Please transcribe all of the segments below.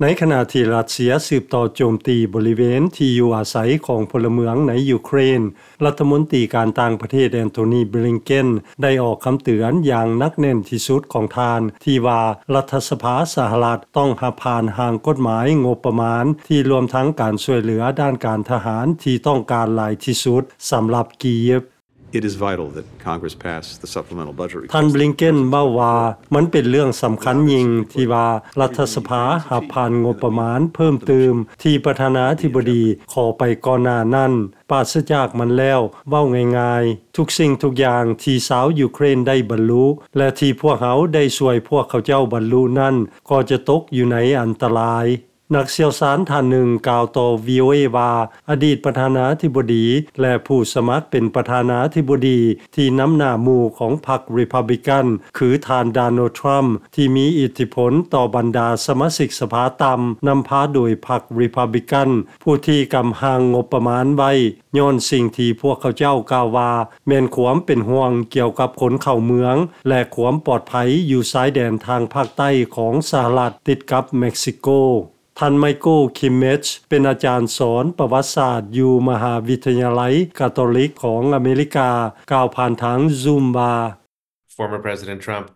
ໃນຂະນະທີ່ຣັດເຊຍສືບຕໍ່ໂຈມຕີບໍລິເວນທີ່ຢູ່ອາໄສຂອງພົນລະເມືອງໃນຢູເຄຣນ, ລັດຖະມົນຕີການຕ່າງປະເທດ Antony Blinken ໄດ້ອອກຄຳເຕືອນຢ່າງໜັກແໜ້ນທີ່ສຸດຂອງທ່ານ ທີ່ວ່າລັດຖະສະພາສະຫະລັດຕ້ອງຮັບຜ່ານຮ່າງກົດໝາຍງົບປະມານ ທີ່ລວມທັງການຊ່ວຍເຫຼືອດ້ານການທະຫານທີ່ຕ້ອງການຫຼາຍທີ່ສຸດສຳລັບກີບ. It is vital that Congress pass the supplemental budget request. ທ່ານ Blinken ເວົ້າວ່າ ມັນເປັນເລື່ອງສຳຄັນຍິ່ງທີ່ວ່າລັດຖະສະພາຮັບຜ່ານງົບປະມານເພີ່ມຕື່ມທີ່ປະທານາທິບໍດີຂໍໄປກ່ອນໜ້ານັ້ນ. ປາສະຈາກມັນແລ້ວ, ເວົ້າງ່າຍໆ, ທຸກສິ່ງທຸກຢ່າງທີ່ຊາວຢູເຄຣນໄດ້ບັນລຸ ແລະ ທີ່ພວກເຮົາໄດ້ຊ່ວຍພວກເຂົາເຈົ້າບັນລຸນັ້ນ ກໍຈະຕົກຢູ່ໃນອັນຕະລາຍ. ນັກຊ່ຽວຊານທ່ານໜຶ່ງກ່າວຕໍ່ VOA ວ່າ ອະດີດປະທານາທິບໍດີ ແລະ ຜູ້ສະໝັກເປັນປະທານາທິບໍດີທີ່ນຳໜ້າໝູ່ຂອງພັກ Republican ຄືທ່ານ Donald Trump ທີ່ມີອິດທິພົນຕໍ່ບັນດາສະມາຊິກສະພາຕ່ຳ ນຳພາໂດຍພັກ Republican ຜູ້ທີ່ກຳຮ່າງງົບປະມານໄວ້ ຍ້ອນສິ່ງທີ່ພວກເຂົາເຈົ້າກ່າວວ່າ ແມ່ນຄວາມເປັນຫ່ວງກ່ຽວກັບຄົນເຂົ້າເມືອງ ແລະ ຄວາມປອດໄພຢູ່ຊາຍແດນທາງພາກໃຕ້ຂອງສະຫະລັດຕິດກັບເມັກຊິໂກ. ທ່ານ Michael Kimmage ເປັນອາຈານສອນປະຫວັດສາດຢູ່ມະຫາວິທະຍາໄລກາໂຕລິກຂອງອາເມລິກາ ກ່າວຜ່ານທາງ Zoom ວ່າ Former President Trump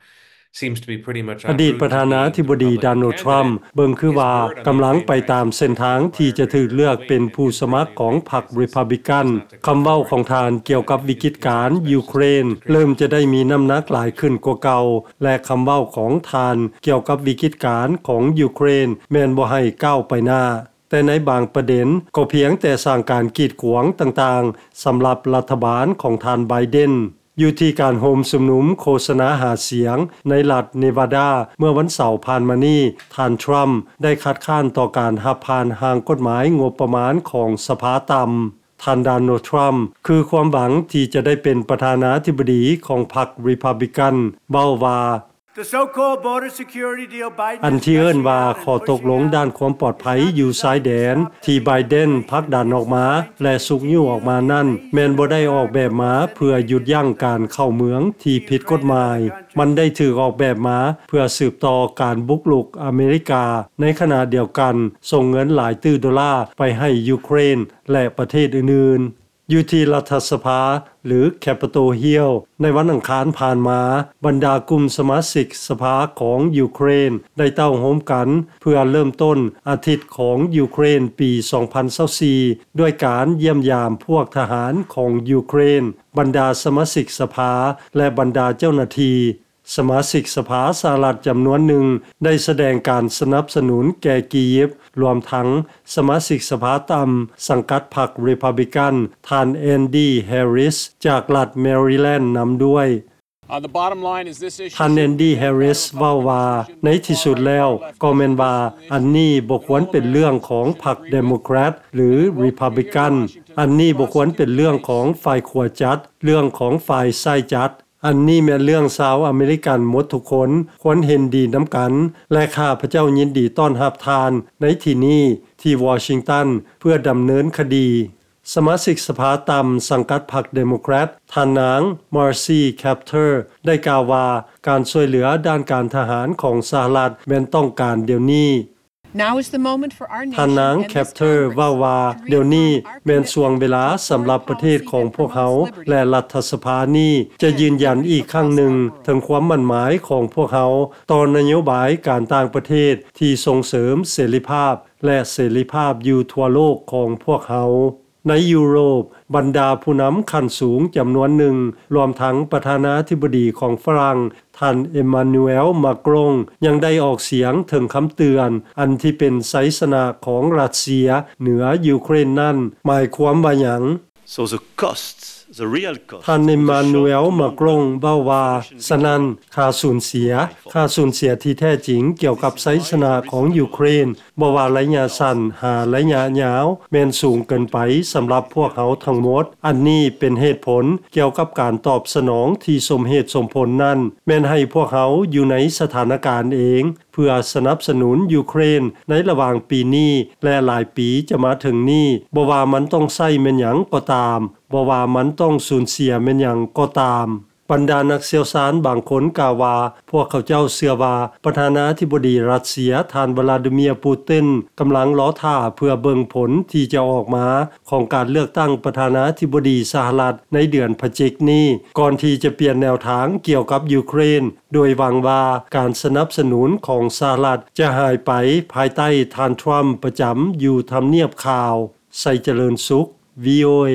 seems to be pretty much ອະດີດປະທານາທິບໍດີ Donald Trump ເບິ່ງຄືວ່າກຳລັງໄປຕາມເສັ້ນທາງທີ່ຈະຖືກເລືອກເປັນຜູ້ສະໝັກຂອງພັກ Republican. ຄຳເວົ້າຂອງທ່ານກ່ຽວກັບວິກິດການຢູເຄຣນ ເລີ່ມຈະໄດ້ມີນ້ຳໜັກຫຼາຍຂຶ້ນກວ່າເກົ່າ ແລະ ຄຳເວົ້າຂອງທ່ານກ່ຽວກັບວິກິດການຂອງຢູເຄຣນ ແມ່ນບໍ່ໃຫ້ກ້າວໄປໜ້າ, ແຕ່ໃນບາງປະເດັນກໍພຽງແຕ່ສ້າງການກີດຂວາງຕ່າງໆ ສຳລັບລັດຖະບານຂອງທ່ານ Biden. ຢູ່ທີ່ການໂຮມຊຸມນຸມໂຄສະນາຫາສຽງໃນລັດ Nevada ເມື່ອວັນເສົາຜ່ານມານີ້, ທ່ານ Trump ໄດ້ຄັດຄ້ານຕໍ່ການຮັບຜ່ານຮ່າງກົດໝາຍງົບປະມານຂອງສະພາຕ່ຳ. ທ່ານ Donald Trump ຄືຄວາມຫວັງທີ່ຈະໄດ້ເປັນປະທານາທິບໍດີຂອງພັກ Republican ເວົ້າວ່າ The so-called border security deal Biden ອັນທີ່ເອີ້ນວ່າຂໍ້ຕົກລົງດ້ານຄວາມປອດໄພຢູ່ຊາຍແດນ ທີ່ Biden ຜັກດັນອອກມາ ແລະ ຊຸກຍູ້ອອກມານັ້ນ ແມ່ນບໍ່ໄດ້ອອກແບບມາເພື່ອຢຸດຢັ້ງການເຂົ້າເມືອງທີ່ຜິດກົດໝາຍ. ມັນໄດ້ຖືກອອກແບບມາເພື່ອສືບຕໍ່ການບຸກລຸກອາເມລິກາ. ໃນຂະນະດຽວກັນ, ສົ່ງເງິນຫຼາຍຕື້ໂດລາໄປໃຫ້ຢູເຄຣນ ແລະ ປະເທດອື່ນໆ. ຢູ່ທີ່ລັດຖະສະພາ ຫຼື Capitol Hill ໃນວັນອັງຄານຜ່ານມາ, ບັນດາກຸ່ມສະມາຊິກສະພາຂອງຢູເຄຣນໄດ້ເຕົ້າໂຮມກັນເພື່ອເລີ່ມຕົ້ນອາທິດຂອງຢູເຄຣນປີສອງພັນຊາວສີ່ ດ້ວຍການຢ້ຽມຢາມພວກທະຫານຂອງຢູເຄຣນ, ບັນດາສະມາຊິກສະພາ ແລະ ບັນດາເຈົ້າໜ້າທີ່. ສະມາຊິກສະພາສະຫະລັດຈຳນວນໜຶ່ງໄດ້ສະແດງການສະໜັບສະໜູນແກ່ກີຢິບ, ລວມທັງສະມາຊິກສະພາຕ່ຳສັງກັດພັກ Republican ທ່ານ Andy Harris ຈາກລັດ Maryland ນຳດ້ວຍ. Uh, the bottom line is this issue ທ່ານ Andy Harris ເວົ້າວ່າ ໃນທີ່ສຸດແລ້ວກໍແມ່ນວ່າ ອັນນີ້ບໍ່ຄວນເປັນເລື່ອງຂອງພັກ Democrat ຫຼື Republican. ອັນນີ້ບໍ່ຄວນເປັນເລື່ອງຂອງຝ່າຍຂວາຈັດ, ເລື່ອງຂອງຝ່າຍຊ້າຍຈັດ. ອັນນີ້ແມ່ນເລື່ອງຊາວອາເມລິກັນໝົດທຸກຄົນຄວນເຫັນດີນຳກັນ ແລະ ຂ້າພະເຈົ້າຍິນດີຕ້ອນຮັບທ່ານໃນທີ່ນີ້ທີ່ວໍຊິງຕັນ ເພື່ອດຳເນີນຄະດີ. ສະມາຊິກສະພາຕ່ຳສັງກັດພັກ Democrat ທ່ານນາງ Marcy Kaptur ໄດ້ກ່າວວ່າ ການຊ່ວຍເຫຼືອດ້ານການທະຫານຂອງສະຫະລັດແມ່ນຕ້ອງການດຽວນີ້. Now is the moment for our nation ທ່ານນາງ and this Kaptur Congress ເວົ້າວ່າ ດຽວນີ້ແມ່ນຊ່ວງເວລາສຳລັບປະເທດຂອງພວກເຮົາ ແລະ ລັດຖະສະພານີ້ຈະຢືນຢັນອີກຄັ້ງໜຶ່ງເຖິງຄວາມໝັ້ນໝາຍຂອງພວກເຮົາຕໍ່ນະໂຍບາຍການຕ່າງປະເທດທີ່ສົ່ງເສີມເສລີພາບ ແລະ ເສລີພາບຢູ່ທົ່ວໂລກຂອງພວກເຮົາ. ໃນຢູໂຣບ, ບັນດາຜູ້ນຳຂັ້ນສູງຈຳນວນໜຶ່ງ, ລວມທັງປະທານາທິບໍດີຂອງຝຣັ່ງ, ທ່ານ Emmanuel Macron ຍັງໄດ້ອອກສຽງເຖິງຄຳເຕືອນ ອັນທີ່ເປັນໄຊຊະນະຂອງຣັດເຊຍເໜືອຢູເຄຣນນັ້ນ ໝາຍຄວາມວ່າຫຍັງ? So the cost, the real cost ທ່ານ Emmanuel Macron ເວົ້າວ່າ, ສະນັ້ນ, ຄ່າສູນເສຍ, ຄ່າສູນເສຍທີ່ແທ້ຈິງກ່ຽວກັບໄຊຊະນະຂອງຢູເຄຣນ ບໍ່ວ່າໄລຍະສັ້ນຫາໄລຍະຍາວ ແມ່ນສູງເກີນໄປສຳລັບພວກເຮົາທັງໝົດ. ອັນນີ້ເປັນເຫດຜົນກ່ຽວກັບການຕອບສະໜອງທີ່ສົມເຫດສົມຜົນນັ້ນ ແມ່ນໃຫ້ພວກເຮົາຢູ່ໃນສະຖານະການເອງ ເພື່ອສະໜັບສະໜູນຢູເຄຣນໃນລະຫວ່າງປີນີ້ ແລະ ຫຼາຍປີຈະມາເຖິງນີ້, ບໍ່ວ່າມັນຕ້ອງໃຊ້ແມ່ນຫຍັງກໍຕາມ, ບໍ່ວ່າມັນຕ້ອງສູນເສຍແມ່ນຫຍັງກໍຕາມ. ບັນດານັກຊ່ຽວຊານບາງຄົນກ່າວວ່າ ພວກເຂົາເຈົ້າເຊື່ອວ່າ ປະທານາທິບໍດີຣັດເຊຍ ທ່ານ ວລາດີເມຍ ປູຕິນ ກຳລັງລໍຖ້າເພື່ອເບິ່ງຜົນທີ່ຈະອອກມາຂອງການເລືອກຕັ້ງປະທານາທິບໍດີສະຫະລັດໃນເດືອນພະຈິກນີ້ ກ່ອນທີ່ຈະປ່ຽນແນວທາງກ່ຽວກັບຢູເຄຣນ ໂດຍຫວັງວ່າການສະໜັບສະໜູນຂອງສະຫະລັດຈະຫາຍໄປພາຍໃຕ້ທ່ານ ທຣຳ ປະຈຳຢູ່ທຳນຽບຂາວ. ໄຊຈະເລີນສຸກ VOA.